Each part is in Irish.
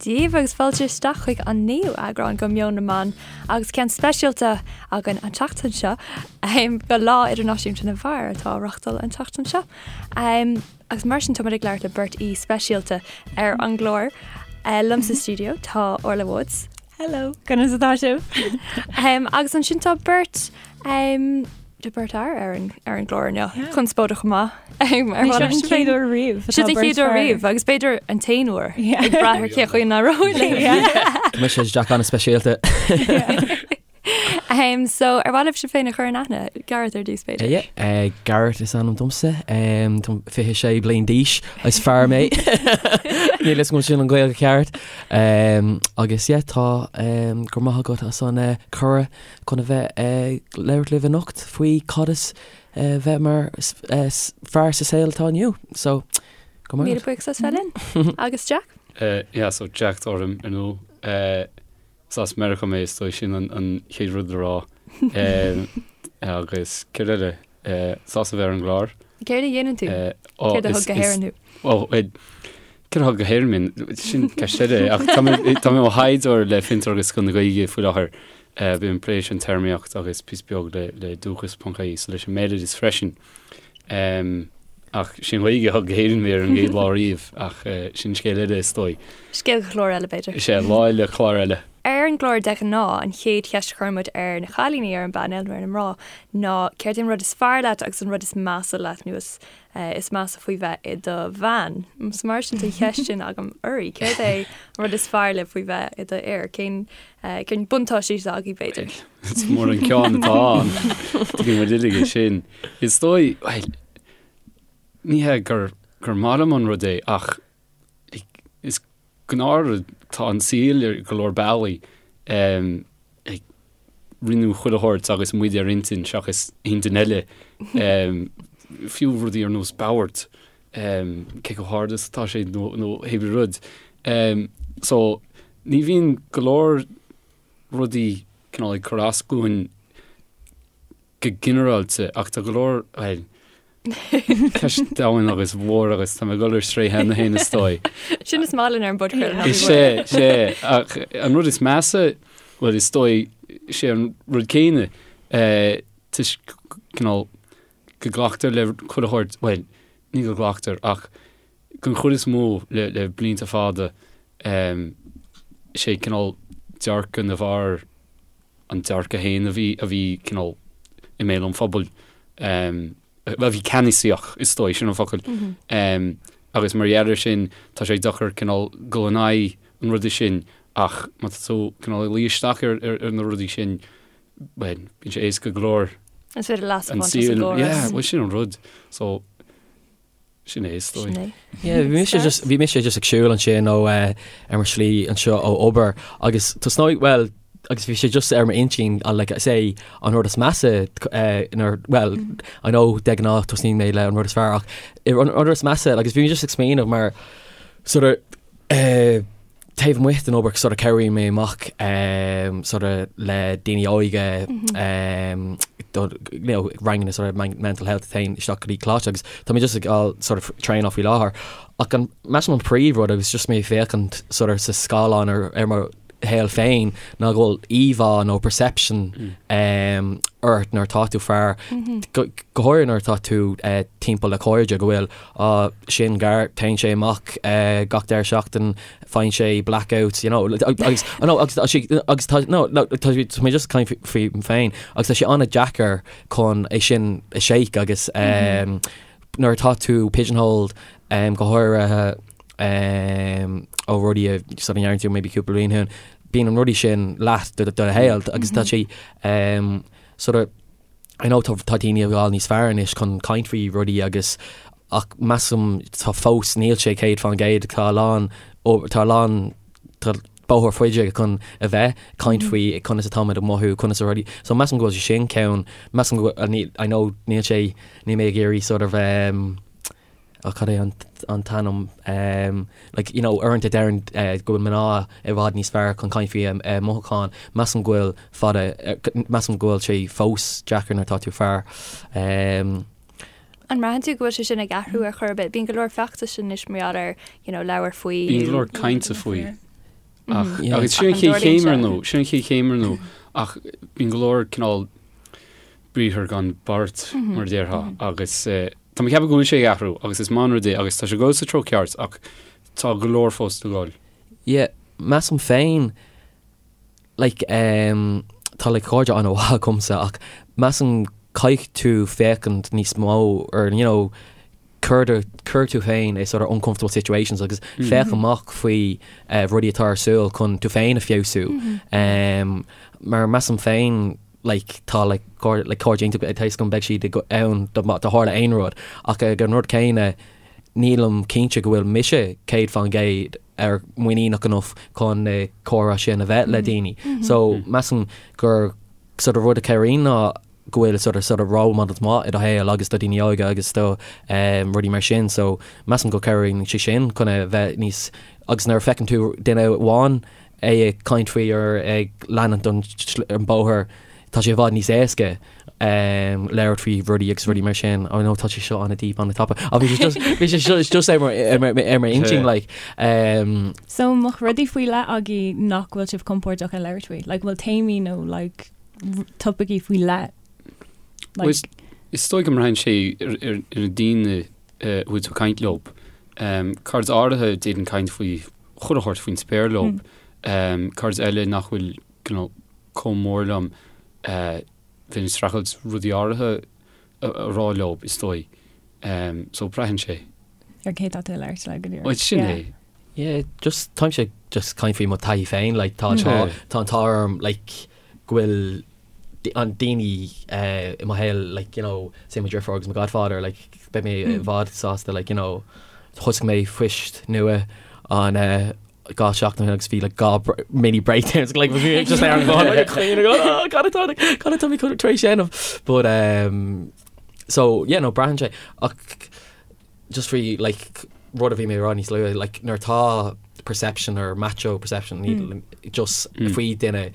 daoibh agus fáilte isteach chuig an naoú eagrán de Meon na mBan agus ceann speisialta againn an tseachtain seo do Lá Idirnáisiúnta na bhFear atá á reachtáil an tseachtain seo. Agus mar sin táimid ag labhairt le beirt aoi speisialta ar an gclár. Liom sa stiúideo tá Orla Woods. Hello, conas atá sibh? Agus ansin tá beirt Tá beirt fhear ar an ar an gclár inniu. Conspóideach chomh maith. Ar Seo an chéad uair riamh. Seo an chéad uair riamh agus b'fhéidir an t-aon uair ag brath ar cé chaoi a n-éireoidh linn. Tá mise Jack an-speisialta. So ar mhaith libh sibh féin a chur in aithne, Gareth ar dtús b'fhéidir? Yeah, Gareth is ainm domsa, Táim 26 bliain d'aois, is fear mé. Níl fhios agam sin an Ghaeilge ceart. Agus yeah, tá go raibh maith agat as an cuireadh chun a bheith ag labhairt libh anocht faoi cad is bheith mar fear sa saol atá inniu. So, go maith. Míle buíochas as bheith linn. Agus Jack? Yeah, so Jack atá orm ar ndóigh. Is as Meiriceá mé, is dóigh sin an chéad rud le rá. Agus céard eile? Sásta bheith ar an gclár. Céard a dhéanann tú? Céard a thug go hÉirinn thú? Ó, céard a thug go hÉirinn mé? Sin ceist eile. Ach tá mé i mo thaighdeoir le Fiontar agus Scoil na Gaeilge faoi láthair. Bím ag plé leis an téarmaíocht agus píosa beag le le dúchas.ie, so leis an mbéaloideas freisin. Ach sin Ghaeilge a thug go hÉirinn mé ar an gcéad lá riamh, ach sin scéal eile is dóigh. Scéal do chlár eile b'fhéidir. Is ea, lá eile, clár eile. Ar an gclár de ghnáth, an chéad cheist a chuireann muid ar na cailíní ar an bpainéal nó ar na mná ná céard é an rud is fearr leat agus an rud is measa leat nó is is measa faoi bheith i do bhean. So mar sin tá an cheist sin agam oraibh. Céard é an rud is fearr libh faoi bheith i do fhear? Cén cén buntáistí atá agaibh b'fhéidir? Is mór an ceann atá ann. Tuigeann muid uilig é sin. Is dóigh, bhuel, ní hé gur gur maith liom an rud é ach like, is gnáthrud tá an saol ar go leor bealaí um, like, rinneadh chuile shórt agus muid ar intinn seachas intinn eile um, fiú rudaí ar nós bord um, cé chomh hard is atá sé nó, nó hébrí rud. Um, so ní bhíonn go leor rudaí cineál ag cur as dúinn go ginearálta ach tá go leor, bhuel, ceist domhain agus mhór agus tá mé ag dul ar strae cheana féin is dóigh. Sin is maith linn ar an bpodchraoladh. Is ea, is ea, ach an rud is measa, bhuel is dóigh, sé an rud céanna, toisc cineál go nglactar le chuile shórt, bhuel, ní go nglactar ach den chuid is mó le le blianta fada, sé cineál dearcadh na bhfear an dearcadh féin a bhí a bhí cineál i mbéal an phobail, a bhí ceannasaíoch is dóigh, sin an focal. Agus mar gheall air sin tá sé deacair cineál dul in aghaidh an ruda sin ach má tá tú cineál ag luí isteach ar ar na rudaí sin, bhuel, bíonn sé éasca go leor. Is féidir leas a bhaint as an gcóras. Yeah, bhuel sin an rud. So, Sin é is dóigh. Sin é. Yeah, bhí mise just, bhí mise just ag siúl ansin ó eh, ar mo shlí anseo ó obair agus tosnóidh, well, agus bhí sé just ar m'intinn uh, like, say, an rud is measa eh, nuair, well, I know de ghnáth tosnaíonn mé le an rud is fearr ach an rud is measa agus bhí mé just ag smaoineamh mar sort of eh, taobh amuigh den obair sort of cabhraíonn mé amach sort of le daoine óige do you know ranganna sort of mental health a théann isteach go dtí coláiste agus tá mé just ag fáil sort of traenáil faoi láthair ach an measaim an príomhrud agus just mé ag féachaint sort of sa scáileán ar ar mo shaol féin ná go bhfuil íomhá nó perception ort nuair atá tú fear go go háirithe nuair atá tú timpeall le cairde go bhfuil Á, sin Gareth, téann sé amach gach deireadh seachtain, faigheann sé blackouts, you know, agus, no, agus tá sé, agus tá, no, no, tá sé, tá mé just ag caint faoi féin, agus tá sé an-deacair chun é sin a shake agus nuair atá tú pigeonholed, go háirithe ó rudaí a sort of ndearna tú maybe cúpla bliain ó shin, bíonn an rudaí sin leat do do shaol agus tá sé sort of, I know tá tá daoine ag fáil níos fearr anois chun caint faoi rudaí agus ach measaim tá fós níl sé 100% tá a lán tá a lán tá bóthar faide chun a bheith caint faoi conas atáimid ag mothú conas a rudaí so measaim go bhfuil sé sin ceann measaim go bhfuil I know níl sé níl mé ag iarraidh sort of um, Ach cad é an t-ainm? Like, you know, uaireanta deireann go bhfuil mná i bhfad níos fearr chun caint faoi a mothúcháin. Measaim go bhfuil fada, measaim go bhfuil sé fós deacair nuair atá tú fear. An mbraitheann tú go bhfuil sé sin ag athrú ar chor ar bith? Bíonn go leor feachtais anois mar gheall ar, you know, labhair faoi. Bíonn go leor cainte faoi. Ach agus sin an chéad chéim ar ndóigh, sin an chéad chéim ar ndóigh, ach bíonn go leor cineál briathar gan beart mar a déarfá agus tá mé ag ceapadh go bhfuil sé ag athrú agus is maith an rud é agus tá sé ag dul sa treo ceart ach tá go leor fós le dhul. Yeah, measaim féin like um, tá like cairde an-mhaith agamsa ach measaim caithfidh tú féachaint níos mó ar you know cuir do, cuir tú féin i sort of uncomfortable situations agus féach amach faoi eh, rudaí atá ar siúl chun tú féin a feabhsú. Um, mar measaim féin like tá like cairde like cairde iontach tá fhios agam beidh siad ag ann dá dá tharla aon rud ach ag an rud céanna nílim cinnte go bhfuil mise 100% ar muiníneach enough chun na comhrá sin a bheith le daoine. So measaim gur sort of rud a chabhraíonn ná go bhfuil sort of sort of role models maith i do shaol agus do daoine óga agus do um, rudaí mar sin so measaim go cabhraíonn sé sin chun a bheith níos agus nuair a feiceann tú duine amháin é ag caint faoi or ag leanúint an, an bóthar tá sé i bhfad níos éasca um, labhairt faoi rudaí agus rudaí mar sin. Oh no, tá sé seo an-deep an-tapa. Ach bhí sé just bhí sé just just ar mar ar mar ar mar intinn like um, So an mbeadh rudaí faoi leith agaibh nach bhfuil sibh compordach ag labhairt faoi? Like bhfuil téamaí nó like topaicí faoi leith? Like, Is, is dóigh go mbraitheann sé ar, ar, ar na daoine a bhfuil tú ag caint leo. Um, cairde áirithe d'fhéadfainn caint faoi chuile shórt faoin spéir leo. Um, cairde eile nach bhfuil you know, chomh mór liom uh, bheinn ag streachailt rudaí áirithe a, a rá leo, is dóigh. Um, so braitheann sé. Ar cé tá tú ag labhairt le go díreach. Well, sin Yeah. é. Yeah, just táimse just caint faoi mo taithí féin, like tá tá tá an t-ádh orm like go bhfuil an daoine i mo shaol like you know say mo dheirfiúr agus mo godfather like beidh mé i bhfad sásta like you know thosaigh mé post nua an 2 seachtain ó shin agus bhí like 2 mini breakdowns like bhí mé just ar an bhfón like caoin ag oh cad atá cad atá mé tar éis déanamh but um so yeah no braitheann sé ach just faoi like rud a bhí mé a rá níos luaithe like nuair atá perception or macho perception mm. just faoi duine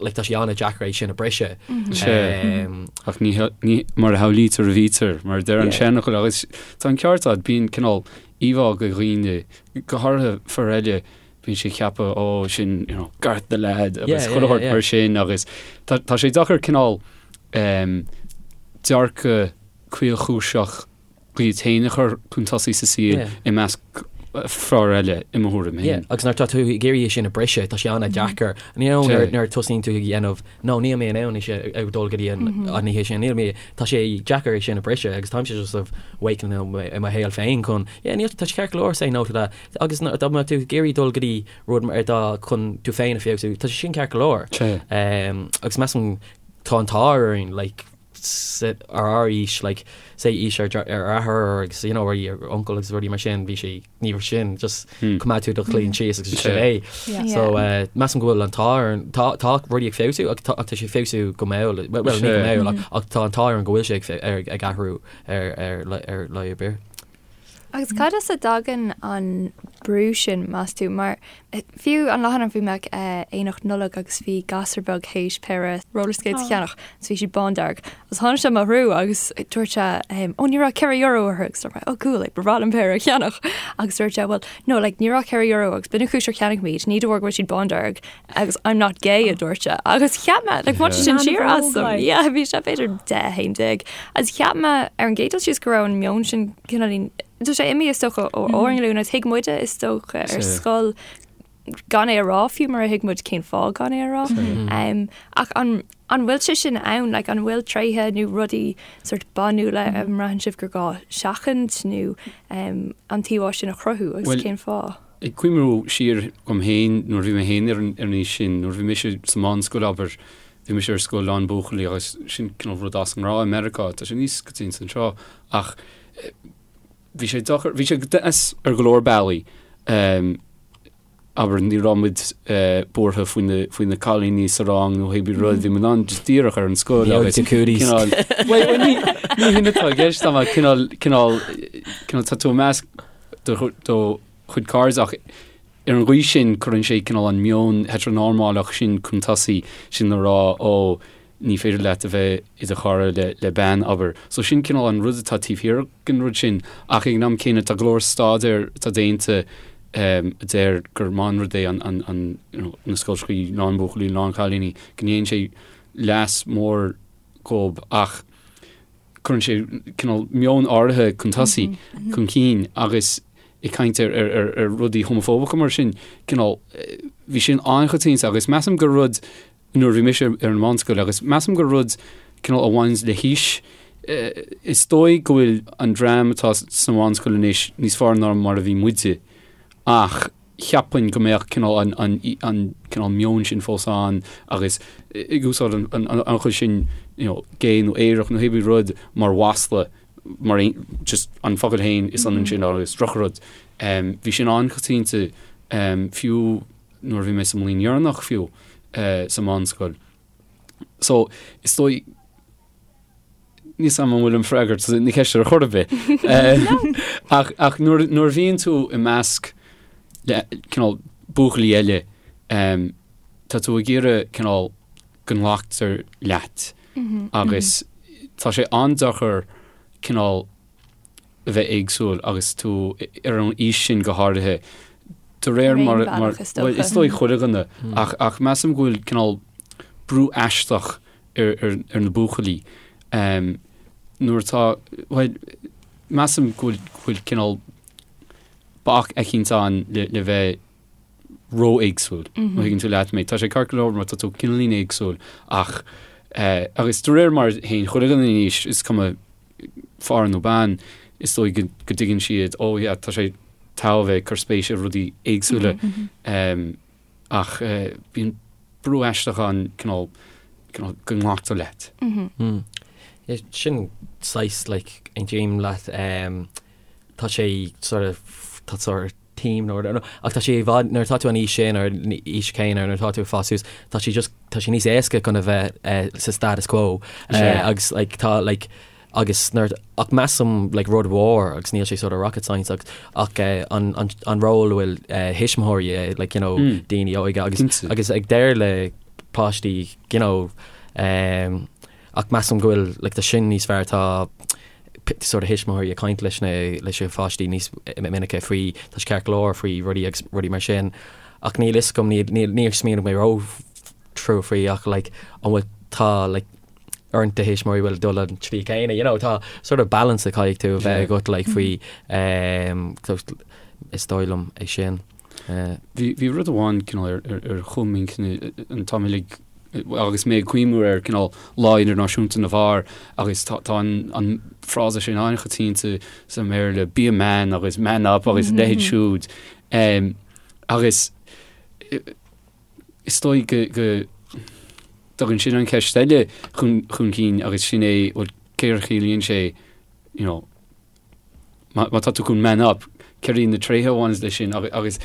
like tá sé an-deacair é sin a briseadh. Sea. Ach ní ní mar a shamhlaítear a bhítear, mar a deir an seanfhocal agus tá an ceart agat, bíonn cineál íomhá de dhaoine, go háirithe fir eile, bíonn siad ag ceapadh ó sin you know Garth the lad agus chuile shórt mar sin agus tá tá sé deacair cineál dearcadh caolchúiseach iad féin a chur chun tosaigh sa saol i measc fear eile, i mo thuairim féin. Agus nuair atá tú ag iarraidh é sin a briseadh, tá sé an-deacair. You know, nuair a tosaíonn tú ag déanamh, no, níl mé in ann é sin ag dul go dtí an oíche sin, níl mé, tá sé deacair é sin a briseadh agus táimse just sort of awakening i mo shaol féin chun, yeah, níl, tá sé ceart go leor say no to that. Agus dá mbeadh tú ag iarraidh dul go dtí rud mar dá chun tú féin a feabhsú, tá sé sin ceart go leor. Agus measaim tá an t-ádh orainn, like, ar ár aois, like, say aois ár athair agus, you know, ar uncail agus rudaí mar sin, bhí sé, ní raibh sin, just coimeád tú do chloigeann síos agus sin é. So, measaim go bhfuil an t-ádh ar, tá, tá rudaí ag feabhsú ach tá, ach tá sé ag feabhsú go mall, well, ní go mall ach, ach tá an t-ádh orainn go bhfuil sé ag, ag athrú ar, ar, ar lá ar bith. Agus cad as a dtagann an brú sin, meas tú? Mar fiú an lá cheana bhí mé ag aonach Nollag agus bhí gasúr beag théis péire roller skates a cheannach agus bhí siad bándearg. Agus tháinig sé i mo threo agus dúirt sé, ó ní raibh €4 orthu agus dúirt mé, oh cool, like, ba bhreá liom péire a cheannach. Agus dúirt sé, well, no, like, ní raibh €4 agus b'in an chúis ar cheannaigh mé iad, ní de bharr go bhfuil siad bándearg agus I'm not gay a dúirt sé. Agus cheap mé, like, bhain sé sin siar asam. Yeah, bhí sé b'fhéidir 10, 11. Agus cheap mé ar an gcéad dul síos go raibh an meon sin cineál, tá sé imithe is dócha ó ár nglúin agus thuig muide is dócha ar scoil gan é a rá fiú mar a thuig muid cén fáth gan é a rá. Um, ach an, an bhfuil sé sin ann, like, an bhfuil tréithe nó rudaí sort banúla a mbraitheann sibh gur gá seachaint nó um, an t-íomhá sin a chruthú agus Well, cén fáth? Ag cuimhniú siar dhom féin nuair a bhí mé féin ar an aois sin, nuair a bhí mise sa mheánscoil, abair, bhí mise ar scoil lán buachaillí agus sin cineál rud as an ngnáth i Meiriceá, tá sé níos coitianta anseo ach bhí sé deacair, bhí sé deas ar go leor bealaí. Abair, ní raibh muid buartha faoi na, faoi na cailíní sa rang nó pé rud, bhí muid in ann just díreach ar an scoil agus cineál, bhuel, ní, ní hin atá i gceist ach cineál, cineál, cineál tá tú i measc do, do chuid cairde ach ar an gcaoi sin cuireann sé cineál an meon heteronormálach sin chun tosaigh, sin le rá ó ní féidir leat a bheith i do chara le, le bean, abair. So sin cineál an rud atá taobh thiar den rud sin ach ag an am céanna tá go leor staidéar atá déanta. a deir gur maith an rud é an, an, you know, na scoilteachaí lán buachaillí, lán cailíní, go ndéanann sé leas mór dhób ach cuireann sé cineál meon áirithe chun tosaigh, chun cinn agus ag caint ar, ar, ar, ar rudaí homafóbacha mar sin, cineál, bhí sin an-choitianta agus measaim gur rud nuair a bhí mise ar an mheánscoil agus measaim gur rud cineál a bhaineanns le haois. Is dóigh go bhfuil an dream atá sa mheánscoil anois níos fearr ná mar a bhí muide ach cheapfainn go mbeadh cineál an, an, an cineál meon sin fós ann agus ag úsáid an, an, an chuid sin you know, gay nó aerach nó hébí rud mar mhasla mar aon, just an focal féin is ionann sin agus drochrud. Um, bhí sin an-choitianta um, fiú nuair a bhí mé sa mbliain dheireanach fiú sa mheánscoil. So, is dóigh, níl 's a'm an bhfuil an freagairt na ceiste ar chor ar bith. Ach, ach nuair, nuair a bhíonn tú i measc le cineál buachaillí eile, tá tú ag iarraidh cineál go nglactar leat agus tá sé an-deacair cineál a bheith éagsúil agus tú ar an aois sin go háirithe, de réir mar, mar, bhuel, is dóigh chuile dhuine, ach, ach measaim go bhfuil cineál brú aisteach ar, ar, ar na buachaillí um, nuair atá, bhuel, measaim go bhfuil, go bhfuil cineál bac eicínt ann le, le bheith ró-éagsúil, má thuigeann tú leat mé. Tá sé ceart go leor má tá tú cineáilín éagsúil ach, eh, agus de réir mar a théann chuile dhuine in aois, is cuma fear nó bean, is dóigh go dtuigeann siad, oh yeah, tá sé togha bheith ag cur spéis i rudaí éagsúla. Ach bíonn brú aisteach ann cineál, cineál go nglactar leat. Sin saghas like aontaím leat, tá sé sort of, tá sort of team nó nó ach tá sé i bhfad nuair atá tú an aois sin ar an aois chéanna nuair atá tú ag fás suas tá sé just tá sé níos éasca chun a bheith eh, sa status quo eh, agus like tá like agus nuair ach measaim like rud mhór agus níl sé sort of rocket science ach ach eh, an an an ról a bhfuil eh, thuismitheoirí eh, like you know mm. daoine óige agus Cinnte. agus ag deir le páistí you know um, Ach measaim go bhfuil like tá sin níos fearr tá sort of thuismitheoirí ag caint leis na leis na pháistí níos minice faoi tá sé ceart go leor faoi rudaí agus rudaí mar sin ach níl fhios agam níl níl níor smaoinigh mé ró trua faoi ach like an bhfuil tá like roinnt de thuismitheoirí bhfuil dul an tslí céanna you know tá sort of balance a caithfidh tú a bheith agat like faoi um, is dóigh liom é sin. Uh, Bhí bhí rud amháin cineál ar ar ar chúl m'intinne an t-am uilig agus mé ag cuimhniú ar cineál Lá Idirnáisiúnta na bhFear agus tá tá an an frása sin an-choitianta sa mBéarla 'be a man' agus 'man up' agus a leithéid siúd. Agus is dóigh go go dtagann sin an cheist eile chun chun cinn agus sin é bhuel céard a chiallaíonn sé you know má tá tú chun man up, céard iad na tréithe a bhaineanns leis sin agus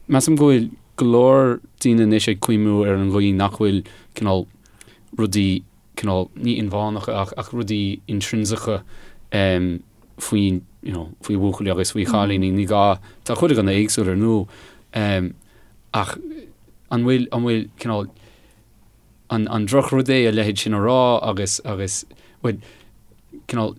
measaim go bhfuil go leor daoine anois ag cuimhniú ar an gcaoi nach bhfuil cineál rudaí cineál ní inmheánacha ach ach rudaí intrinsiceacha um, faoi you know, faoi bhuachaillí agus faoi chailíní ní gá tá chuile dhuine éagsúil ar ndóigh um, ach an bhfuil an bhfuil cineál an an drochrud é a leithéid sin a rá agus agus bhfuil cineál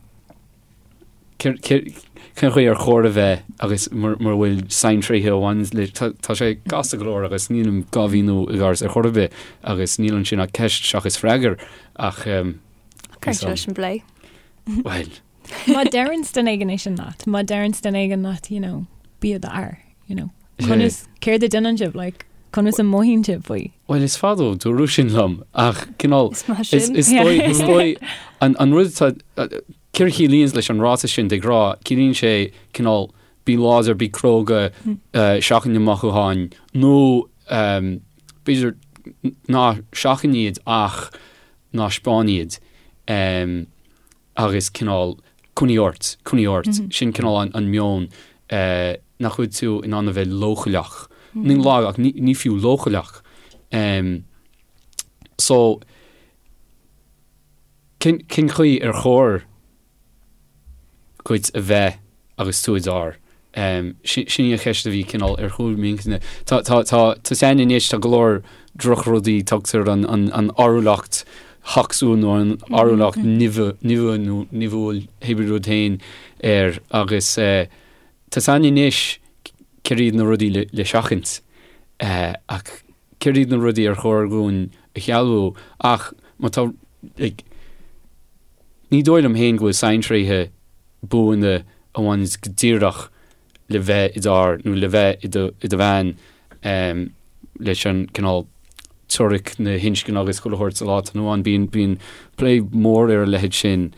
Cén chaoi ar chóir a bheith agus mura bhfuil saintréithe a bhaineann le, tá sé gasta go leor agus nílim dhá mhíniú i gceart ar chor ar bith agus níl ansin ach ceist seachas freagar ach Cuireann sé leis an bplé. Bhuel. Má deireann duine éigin é sin leat, má deireann duine éigin leat, you know, bí i d'fhear, you know. Conas, céard a déanann sibh, like, conas a mothaíonn sibh faoi? Bhuel, is fada ó dúradh sin liom, ach cineál, Is maith sin. is dóigh, is dóigh, an, an rud atá, céard a chiallaíonns leis an ráiteas sin de ghnáth, ciallaíonn sé cineál bí láidir, bí cróga, seachain na mothúcháin, nó b'fhéidir ná seachain iad ach ná 'speáin iad. agus cineál coinnigh ort, coinnigh ort, sin cineál an meon nach bhfuil tú in ann a bheith leochaileach, ní lag ach ní fiú leochaileach. So cén chaoi ar chóir dhuit a bheith agus tú i d'fhear? Sin í an cheist a bhí cineál ar chúl m'intinne. Tá, tá, tá, tá 's againn anois, tá go leor drochrudaí, tugtar an, an, an fhearúlacht thocsúil nó an fhearúlacht nimhe, nimhe nó nimhiúil, hébrí rud féin air agus tá 's againn anois. céard iad na rudaí le seachaint ach céard iad na rudaí ar chóir dhúinn a shealbhú ach má tá like ní dóigh liom féin go bhfuil saintréithe buana a bhaineanns go díreach le bheith i d'fhear nó le bheith i do i do bhean leis an cineál teoiric na hinscne agus chuile shórt sa lá atá inniu ann. Bíonn bíonn plé mór ar a leithéid sin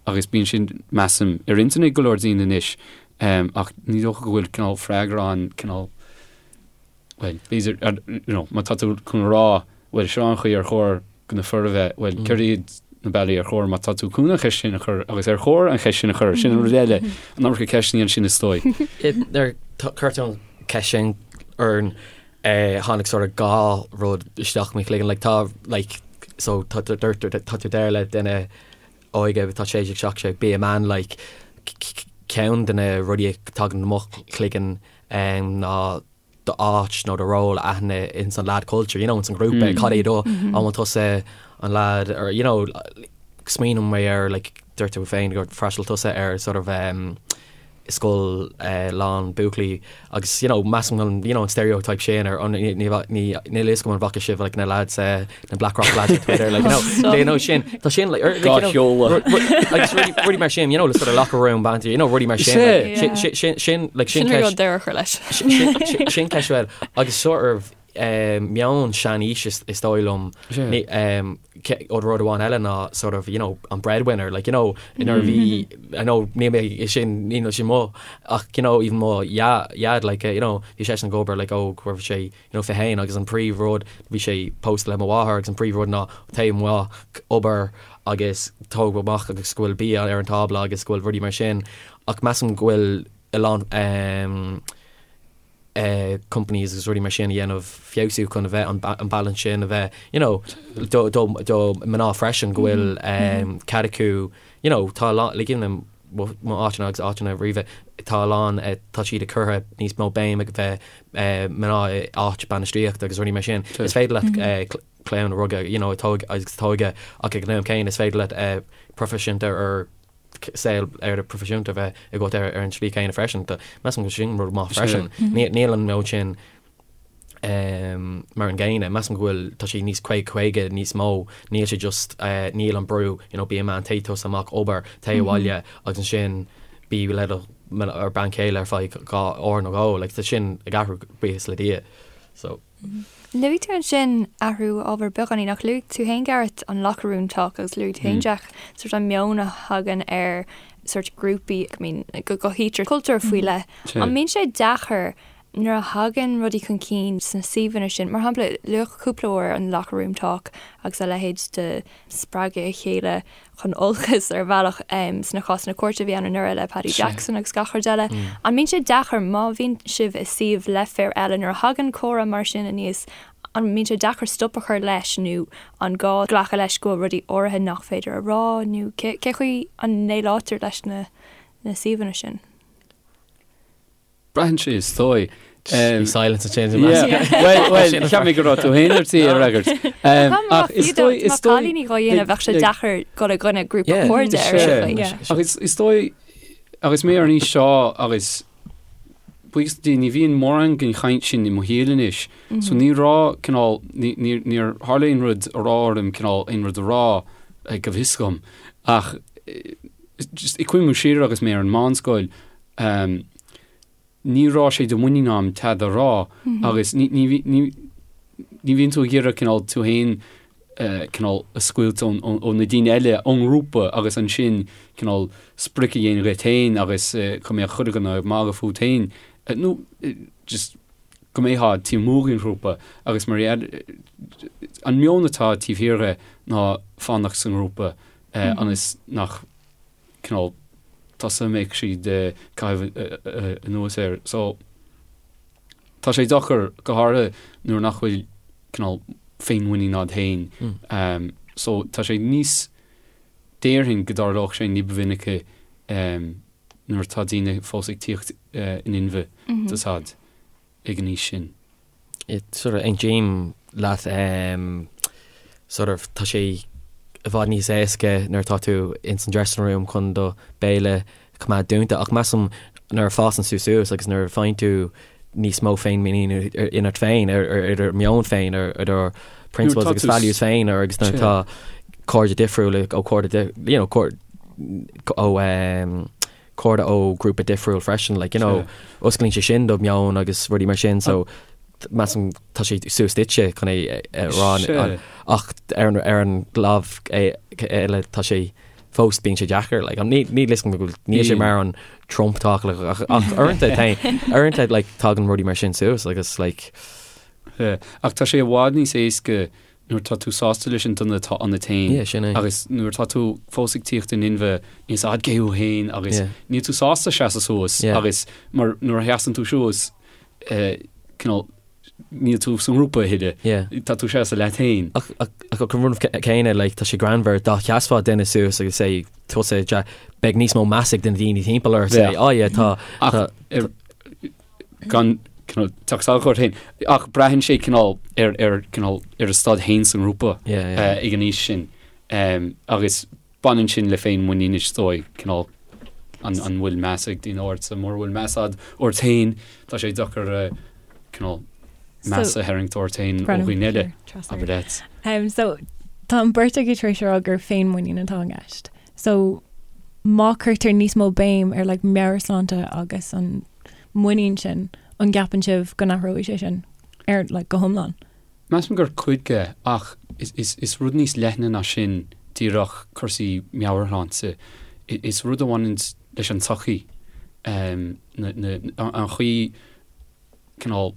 agus bíonn sin measaim ar intinn ag go leor daoine anois ach ní dócha go bhfuil cineál freagra ann cineál bhuel, b'fhéidir, you know, má tá tú chun a rá, bhuel, seo an chaoi ar chóir do na fir a bheith, bhuel, céard iad na bealaí ar chóir má tá tú chun an cheist sin a chur agus ar chóir an cheist sin a chur, sin an rud eile, an iomarca ceisteanna ansin is dóigh. Nuair a chuir tú an cheist sin orainn, tháinig sort of dhá rud isteach i mo chloigeann, like tá, like, so tá tú tá tú deir le duine óige tá 16, 17, be a man, like, ceann de na rudaí a tagann i mo chloigeann ná d'áit nó do ról a aithne ins an lad culture, you know, ins an ghrúpa, cad é do, an bhfuil tusa an lad or, you know, smaoiním mé ar, like, dúirt tú féin gur fhreastail tusa ar sort of um, scoil uh, lán buachaillí agus, you know, measaim an, you know, an stereotype sin ar an, ní, ní, ní, níl a fhios agam an bhfaca sibh, like, na lads, uh, na Blackrock lads ar Twitter, like, you know, they know sin, tá sin, like, or, like, you know, sheoladh. like, rudaí, rudaí mar sin, you know, le sort of locker room banter, you know, rudaí mar sin, like, sin, sin, sin, sin, like, sin Sin rud deireadh a chur leis. sin, sin ceist well, agus sort of, um, meon seanaois is, is dóigh liom, ní, um, ce- ó rud amháin eile ná sort of, you know, an breadwinner, like, you know, nuair a bhí, I know, ní mé sin, ní sin mo, ach, you know, even mo dhaid, like, you know, bhí seisean ag obair, like, ó, go raibh sé, you know, 21 agus an príomh rud, bhí sé pósta le mo mháthair agus an príomh rud ná téigh amach obair agus tóg amach agus go bhfuil bia ar an tábla agus go bhfuil rudaí mar sin ach measaim go bhfuil a lán ehm eh companies agus rudaí mar sin a dhéanamh feabhsú chun a bheith an an balance sin a bheith you know do do do mná freisin go bhfuil ehm cead acu you know tá a lán like you know mo áiteanna agus áiteanna roimhe tá a lán tá siad ag cur níos mó béim ag bheith mná i áit bainistíochta agus rudaí mar sin. Is féidir leat clann a rugadh you know tóg agus tógadh ach ag an am céanna is féidir leat proifisiúnta ar saol ar proifisiúnta bheith agat ar an slí céanna freisin. Measaim go sin rud maith freisin. Níl an meon sin mar an gcéanna. Measaim go bhfuil, tá sé níos 50 50 níos mó, níl sé just, níl an brú, you know, be a man, téigh tusa amach, obair, téigh abhaile agus ansin bí le do ar bean chéile ar feadh dhá uair nó dhó, like tá sin ag athrú buíochas le Dia. So. Luaigh tú ansin athrú ábhair beagáinín ach luaigh tú féin Gareth an locker room talk agus luaigh tú féin Jack sort an meon a thagann ar sort grúpaí, I mean go gcothaítear cultúr faoi leith. An mbíonn sé deacair Nuair a thagann rudaí chun cinn sna suíomhanna sin, mar shampla, luadh cúpla uair an locker room talk agus a leithéid de spreagadh a chéile chun olcais ar bhealach sna cásanna cúirte a bhí ann anuraidh le Paddy Jackson agus gach rud eile. An mbíonn sé deacair má bhíonn sibh i suíomh le fir eile nuair a thagann comhrá mar sin aníos, an mbíonn sé deacair stop a chur leis nó an gá glacadh leis go bhfuil rudaí áirithe nach féidir a rá nó cé chaoi a ndéileáiltear leis na suíomhanna sin? Braitheann sé is dóigh. Bhí silence ansin. Well, well, cheap mé go raibh tú féin ar tí a fhreagairt. Ach is dóigh, is dóigh. Cailíní dhá dhéanamh bheadh sé deacair dul i gcoinne grúpa cairde ar an chaoi. Ach is dóigh, agus mé ar an aois seo agus buíochas le Dia ní bhíonn mórán den chaint sin i mo shaol anois. So ní raibh cineál, níor tharla aon rud a raibh orm cineál aon rud a rá go bhfios dom. Ach just ag cuimhniú siar agus mé ar an meánscoil, ní raibh sé de mhuinín a'm tada a rá agus ní ní bhíonn tú ag iarraidh cineál tú féin cineál a scoilt ó na daoine eile ón ngrúpa agus ansin cineál sprioc a dhéanamh dhuit féin agus go mbeadh chuile dhuine ag magadh fút féin nó just go mbeifeá taobh amuigh den ghrúpa agus mar an meon atá taobh thiar dhe ná fanacht sa ngrúpa ionas nach cineál tusa a mbeidh siad ag caitheamh anuas air. So, tá sé deacair, go háirithe nuair nach bhfuil cineál féinmhuinín a'd féin. So, tá sé níos, déarfainn go dtarlódh sé ní ba mhinice nuair atá daoine fós ag tíocht in inmhe tá 's a'd ag an aois sin. Sort of aontaím leat sort of tá sé i bhfad níos éasca nuair atá tú ins an dressing room chun do béal a choimeád dúnta ach measaim nuair a fásann tú suas agus nuair a faigheann tú níos mó féinmhuinín ionat féin, ar do meon féin, ar do principles agus values féin, ar agus nuair atá cairde difriúla ó cairde, you know, ó cairde ó grúpa difriúil freisin, like, you know, osclaíonn sé sin do meon agus rudaí mar sin, so measaim tá sé suas duitse chun é a rá ach ar an lámh eile tá sé fós bíonn sé deacair like ní ní listen go níl sé mar an Trump talk like ach ach uaireanta tá uaireanta like tagann rudaí mar sin suas agus like Yeah. Ach tá sé i bhfad níos éasca nuair tá tú sásta leis an duine atá ionat féin Yeah, sin é. agus nuair atá tú fós ag tíocht in inmhe níl 's a'd cé thú féin agus Yeah. níl tú sásta seasamh suas Yeah. agus mar nuair a sheasann tú suas eh, cineál níl tú sa ngrúpa a thuilleadh. Yeah. Tá tú seasamh leat féin. Ach ach an rud céanna, like, tá sé greannmhar, dá sheasfá duine suas agus say tusa ja, beidh níos mó meas ag na daoine timpeall ort, say, Yeah. oh yeah, tá, Ach tá, ar, gan cineál teacht salach ort féin, ach braitheann sé cineál ar, ar, cineál ar a staid féin sa ngrúpa Yeah, yeah. eh, ag an aois sin. Um, agus baineann sin le féinmhuinín is dóigh, cineál an, an bhfuil meas ag daoine ortsa, mura bhfuil meas a'd ort féin, tá sé deacair eh, cineál meas a tharraingt ort féin ó dhaoine eile, abair leat. Um, so, tá an beirt agaibh tar éis a rá gur féinmhuinín atá i gceist. So, má cuirtear níos mó béim ar like, meabhairshláinte agus an muinín sin, an gceapann sibh go n-athróidh sé sin ar like, go hiomlán? Measaim gur cuid de, ach is rud níos leithne ná sin díreach cúrsaí meabhairshláinte. Is rud a bhaineann leis an tsochaí, an chaoi cineál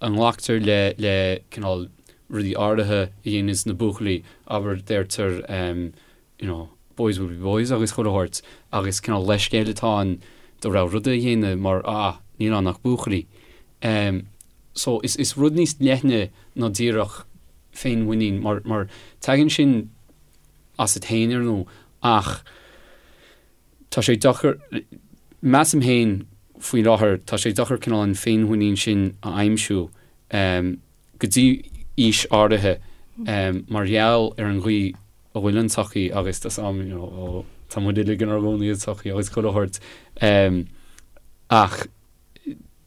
a nglactar le le cineál rudaí áirithe a dhéananns na buachaillí, abair deirtear you know, boys will be boys agus chuile shórt agus cineál leithscéal atá ann do rogha ruda a dhéanamh mar ah níl ann ach buachaillí. Em so is is rud níos leithne ná díreach féinmhuinín mar mar tagann sin asat féin ar ndóigh ach tá sé deacair measaim féin faoi láthair tá sé deacair cineál an féinmhuinín sin a aimsiú em go dtí aois áirithe mar gheall ar an gcaoi a bhfuil an tsochaí agus tá 's a'm you know ó tá muid uilig inár gcónaí i sochaí agus chuile shórt ach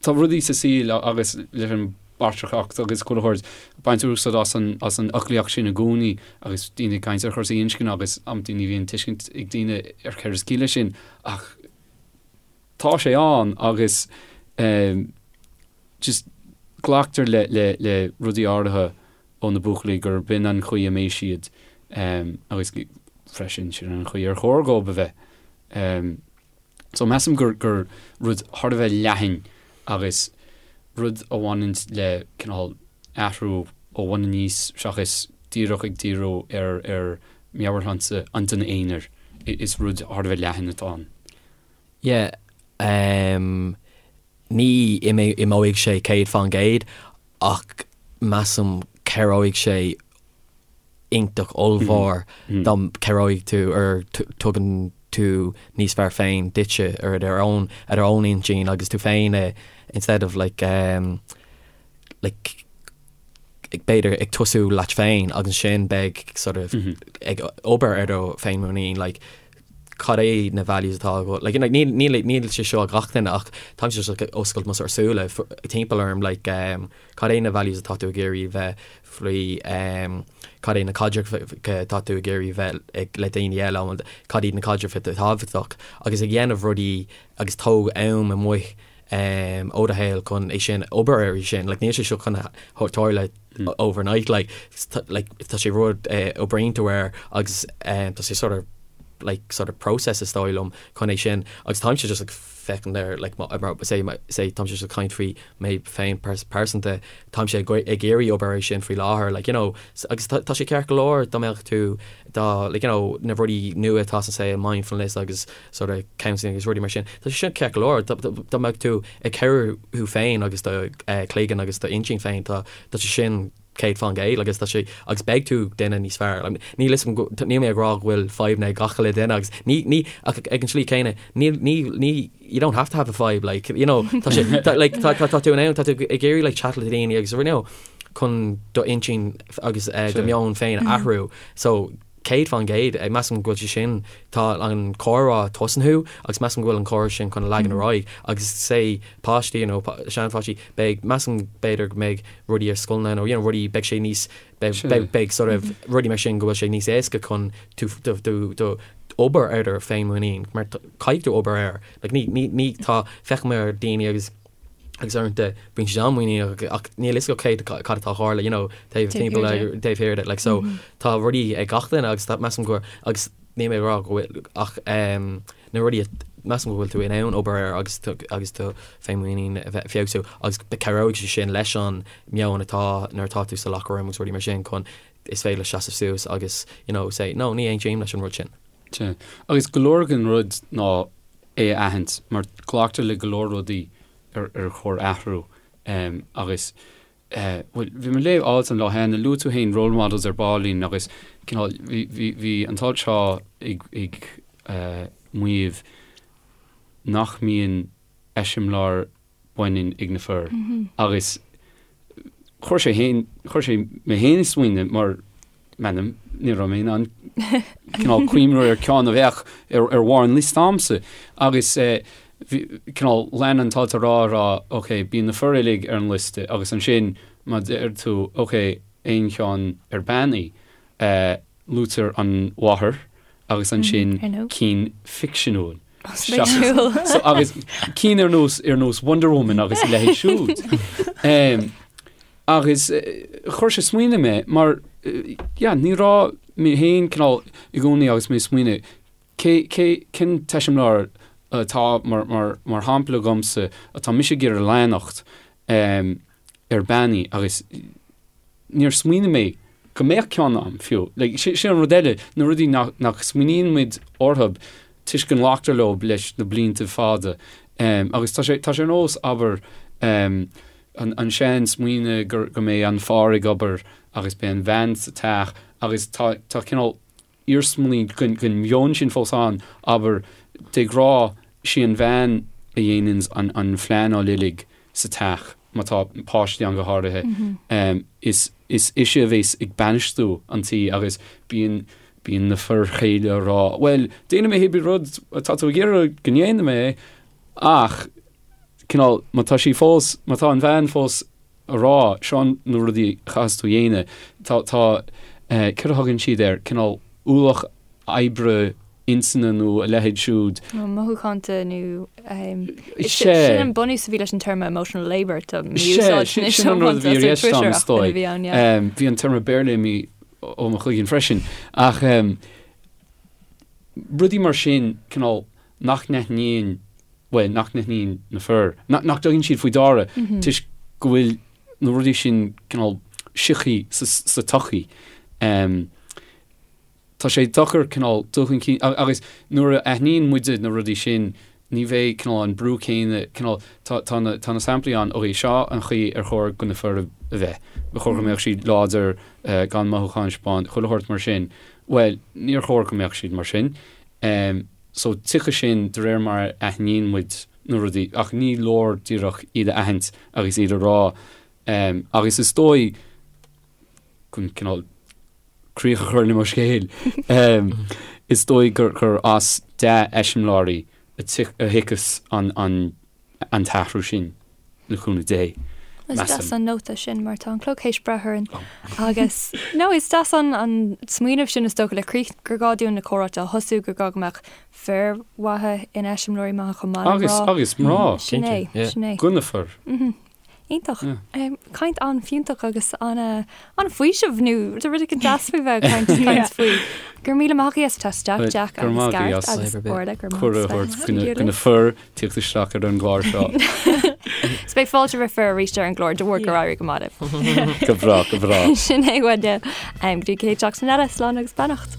tá rudaí sa saol agus leis an bpatrarcacht agus chuile shórt baintear úsáid as an as an fhoclaíocht sin i gcónaí agus daoine ag caint ar chúrsaí inscne agus amantaí ní bhíonn tuiscint ag daoine ar céard is ciall leis sin ach tá sé ann agus just glactar le le le rudaí áirithe ó na buachaillí gur b'in an chaoi a mbeidh siad agus freisin sin an chaoi ar chóir dhóibh a bheith. So measaim gur gur rud thar a bheith leathan agus rud a bhaineann le cineál athrú ó bhun aníos seachas díreach ag díriú ar ar meabhairshláinte an duine aonair. Is rud thar a bheith leathan atá ann. Yeah, um, ní imeoidh sé 100% ach measaim cabhróidh sé iontach ollmhór dá cabhróidh tú ar tugann tú níos fearr féin duitse ar ar own ar own intinn agus tú féin instead of like um, like b'fhéidir ag tosú leat féin agus ansin beidh sort of ag obair ar do féinmhuinín like cad é na values atá agat like like níl níl níl sé seo ag gach duine ach táimse just ag oscailt mo sort of súile timpeall orm like um, cad é na values atá tú ag iarraidh bheith faoi um, cad é na caidrimh atá tú ag iarraidh bheith ag le daoine eile cad iad na caidrimh atá tábhachtach agus ag dhéanamh rudaí agus tóg am amuigh um, ó do shaol chun é sin obair air sin like níl sé seo chun tarlú overnight like like tá sé rud uh, oibríonn tú air agus um, tá sé sort of like sort of process is dóigh liom chun é sin agus táimse just like féachaint ar like mar say say táimse just ag caint faoi mé féin pearsanta táimse ag ag iarraidh obair air sin faoi láthair like you know agus tá sé ceart go leor dá mbeadh tú dá like you know na rudaí nua atá sa saol mindfulness agus sort of counselling agus rudaí mar sin. Tá sé sin ceart go leor, dá mbeadh tú ag cabhrú thú féin agus do chloigeann agus do intinn féin, tá tá sé sin 100% agus tá sé agus beidh tú duine níos fearr. Níl fhios agam go, níl mé ag rá go bhfuil fadhbanna ag gach uile duine agus ní, ní, ach ag an tslí céanna, níl, ní, ní, you don't have to have a fadhb, like, you know, tá sé, tá, like, tá, tá, tá tú in ann, tá tú ag iarraidh like chat le daoine agus you know, chun do intinn agus uh, do meon féin a athrú. So, 100%, measaim go bhfuil sé sin, tá an comhrá tosnaithe agus measaim go bhfuil an comhrá sin chun a leagan ar aghaidh agus say páistí you know seanpháistí beidh, measaim b'fhéidir go mbeidh rudaí ar scoileanna nó you know rudaí beidh sé níos, beidh, beidh, beidh sort of rudaí mar sin go bhfuil sé níos éasca chun tú, do, do, do obair ar do féinmhuinín mar caithfidh tú obair air like ní, ní, ní tá, feicim ar daoine agus agus uaireanta bíonn siad an-mhuiníneach ach níl fhios acu cé cad atá ag tarlú you know taobh timpeall taobh thiar de like so tá rudaí ag gach duine agus tá measaim go agus níl mé ag rá go bhfuil ach um, na rudaí measaim go bhfuil tú in ann obair air agus tú agus do féinmhuinín a bheith feabhsú agus cabhróidh sé sin leis an meon atá nuair atá tú sa locker room agus rudaí mar sin chun is féidir leat seasamh suas agus you know say no ní aontaím leis an rud sin. Sea. Agus go leor den rud ná é a aithint, mar glactar le go leor rudaí ar ar chóir athrú agus bhuel bhí mé ag léamh alt an lá cheana, luaigh tú féin role models ar baillín agus cineál bhí bhí bhí an t-alt seo ag ag maíomh nach mbíonn eiseamláir baineann ag na fir agus chuir sé féin, chuir sé mé féin ag smaoineamh mar m'anam, ní raibh mé in ann cineál cuimhneamh ar ceann a bheadh ar ar bharr an liosta a'msa agus bhí cineál lean an t-alt a rá a rá ok bíonn na fir uilig ar an liosta agus ansin má deir tú ok aon cheann ar bean í luaitear an mháthair agus ansin cinn ficseanúil. So, agus cinn ar nós ar nós Wonder Woman agus a leithéid siúd. Um, agus chuir sé smaoineamh mé mar yeah, ní raibh mé féin cineál i gcónaí agus mé smaoineamh cé cé cén t-eiseamláir atá mar mar mar shampla agamsa atá mise ag iarraidh leanacht um, ar bean í agus níor smaoinigh mé go mbeadh ceann a'm fiú. Like, sin an rud eile, na rudaí nach, nach smaoiníonn muid orthu toisc go nglactar leo leis na blianta fada. Um, agus tá sé, tá sé ar nós, abair, um, an, an sean smaoineamh gur, go mbeidh an fear ag obair agus beidh an bhean sa teach agus tá, tá cineál iarsmaí den mheon sin fós ann, abair, de ghnáth, sí an bhean a dhéananns an phleanáil uilig sa teach, má tá páistí ann go háirithe, is ise a bhéas ag bainistiú an tí agus bíonn bíonn na fir chéile ag rá, bhuel, déanfaidh mé cibé rud atá tú ag iarraidh go ndéanfaidh mé ach cineál, má tá sí fós, má tá an bhean fós a rá, seo na rudaí a chaithfeas tú a dhéanamh. Tá, tá, céard a thugann siad air, cineál ualach oibre intinne nó a leithéid siúd. Nó mothúchánta nó, sin an bunús a bhí leis an téarma emotional labour, tá mí-úsáid anois sin an rud a bhí i gceist agam is dóigh. Bhí an téarma Béarla imithe ó mo chloigeann freisin. Ach rudaí mar sin, cineál nach n-aithníonn bhuel, nach n-aithníonn na fir, nach dtugann siad faoi deara toisc go bhfuil na rudaí sin cineál sioctha sa tsochaí. Tá sé deacair cineál dul chun cinn agus nuair a aithníonn muide na rudaí sin ní bheidh cineál an brú céanna, cineál, tá, tá na, tá na samplaí ann, ok, seo an chaoi ar chóir do na fir a bheith, ba chóir go mbeadh siad láidir, gan mothúcháin a thaispeáint, chuile shórt mar sin. Bhuel, níor chóir go mbeadh siad mar sin. So tiocfaidh sin de réir mar a aithníonn muid na rudaí, ach ní leor díreach iad a aithint agus iad a rá. Agus is dóigh, chun cineál críoch a chur le mo scéal, is dóigh gur as dea-eiseamláirí a thiocfas an an t-athrú sin, le cúnamh Dé, Is deas an nóta sin mar tá an clog théis breith orainn agus no is deas an an smaoineamh sin is dócha le críoch gur gá dúinn na comhráite a thosú gur gá go mbeadh fir mhaithe ina eiseamláirí maithe chomh maith le mná. Agus mná. Sin é, sin é. Do na fir. Iontach. Caint an-fhiúntach agus an-fhaoiseamh nó rud éigin deas faoi bheith ag caint caint faoi. Go raibh míle maith agaibh as teacht isteach, Jack agus Gareth agus Orla, go raibh maith Cuireadh a thabhairt do na fir tíocht isteach ar an gclár seo. Is beidh fáilte roimh fir arís ar an gclár de bharr gur éirigh go maith libh. Go breá, go breá. Sin é uainne. Go dtí an chéad seachtain eile, slán agus beannacht.